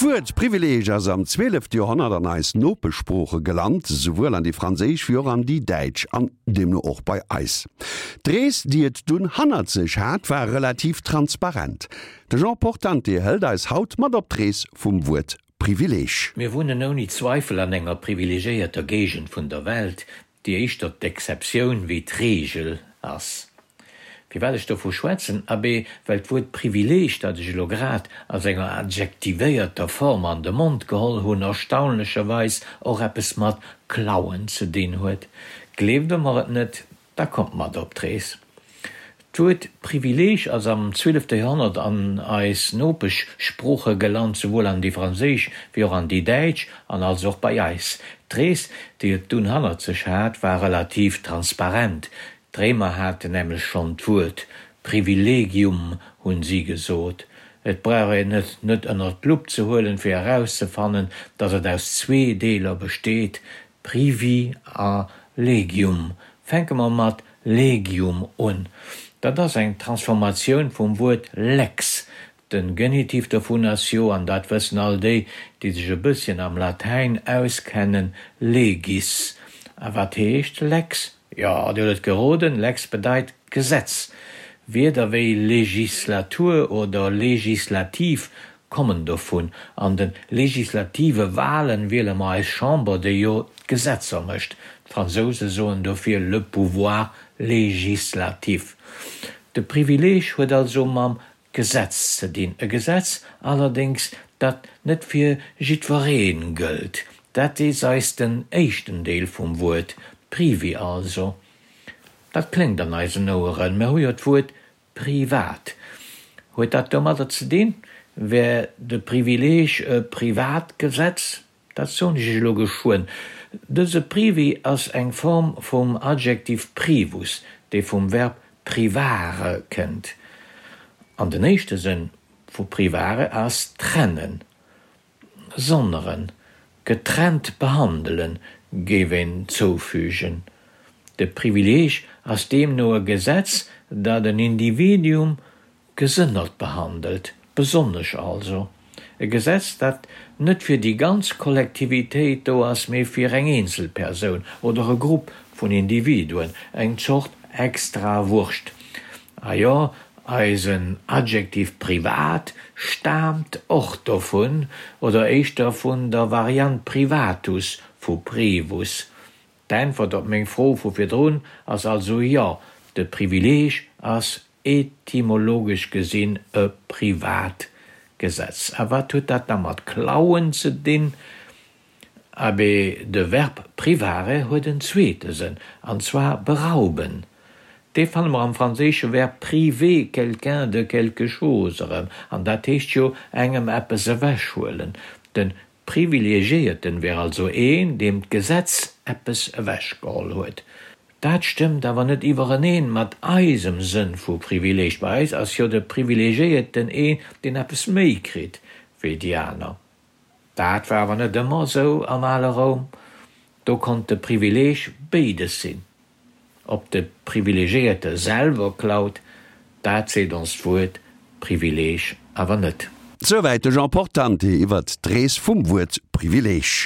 D'Wuert Privileeg ass am zwielefte Joerhonnert an eis Nopeschsprooche gelant, souwuel an déi franséisch wéi och an déi däitsch an deemno och bei eis. D'Rees, déi et dunn hannert sech hat, war relativ transparent. De Jean Portante hëlt eis haut mat op d'Rees vum Wuert Privileeg. Mir wunnen ouni Zweifel an enger privilegiéierter Géigend vun der Welt, déi éischter d'Exceptioun wéi d'Reegel ass. Firwat ech dovu schwätzen? Abee, well d'Wuert Privileeg, dat ech elo grad a senger adjektivéierter Form an de Mond geholl hunn, erstaunlecherweis och eppes mat klauen ze dinn huet. Gleeft Der mer et net, da kommt mat op d'Rees. D'Wuert Privileeg ass am zwielefte Joerhonnert an eis Nopeschsprooche gelant, souwuel an déi franséisch wéi och an déi däitsch, an also och bei eis. D'Rees, déi et dunn hannert sech hat, war relativ transparent. D'Réimer haten nämlech schonn d'Wuert Privilegium, hunn si gesot. Et brauch een et net ënnert d'Lupp ze huelen, fir erauszefannen, datt et aus zwee Deeler besteet, Privi a Legium. Fänke mer mat Legium un. Dat ass eng Transformatioun vum Wuert lex. Den Genitiv dovun ass jo, an dat wëssen all déi, déi sech e bësschen am Latäin auskennen, legis. A wat heescht lex? Jo, Dir hutt et geroden, lex bedeit Gesetz. Wierder wéi Legislatur oder legislativ kommen dovun. An de legislative Wahlen wiele mer eis Chamber, déi jo d'Gesetzer mécht. D'Fransouse soen dofir le pouvoir législatif. De Privileeg huet also mam Gesetz ze dinn, e Gesetz allerdéngs, dat net fir jiddweree gëllt. Dat is eis den éischten Deel vum Wuert, privi also. Dat kléngt an eisen Oueren, mer hu jo d'Wuert Privat. Huet dat domadder ze dinn? Wär de Privileeg e privat Gesetz? Dat soen ech iech elo geschwënn. Dëse privi ass eng Form vum Adjektiv privus, dee vum Verb privare kënnt. An den éischte Sënn vu privare ass trennen. Sonneren, getrennt behandelen, géif een zoufügen. De Privileeg ass deemno e Gesetz, dat en Individuum gesënnert behandelt, besonnesch also. E Gesetz, dat net fir déi ganz Kollektivitéit do ass, mee fir eng eenzel Persoun oder e Grupp vun Individuen, eng Zort Extrawurscht. A jo, eisen Adjektiv privat staamt och dovun, oder éischter vun der Variant privatus vu privus. D'Äntwert op meng Fro vu virdrun ass also jo, de Privileeg ass etymologesch gesinn e privat Gesetz. A wat huet dat da mat klauen ze dinn? Abee, de Verb privare huet en zweete Sënn, an zwar berauben. Dee fanne mer am franséische Verb priver quelqu'un de quelque chose erëm, an dat heescht jo engem eppes ewechhuelen. De Privilegiéierten wär also een, deem d'Gesetz eppes ewechgeholl huet. Dat stëmmt awer net iwwereneen mat eisem Sënn vu Privileeg. Bei eis ass jo de Privilegiéierten een, deen eppes méi kritt wéi déi aner. Dat war awer net ëmmer esou am ale Roum. Do konnt de Privileeg béides sinn. Ob de Privilegiéierte selwer klaut, dat seet ons d'Wuert Privileeg awer net. Souwäit de Jean Portante iwwert d'Rees vum Wuert Privileeg.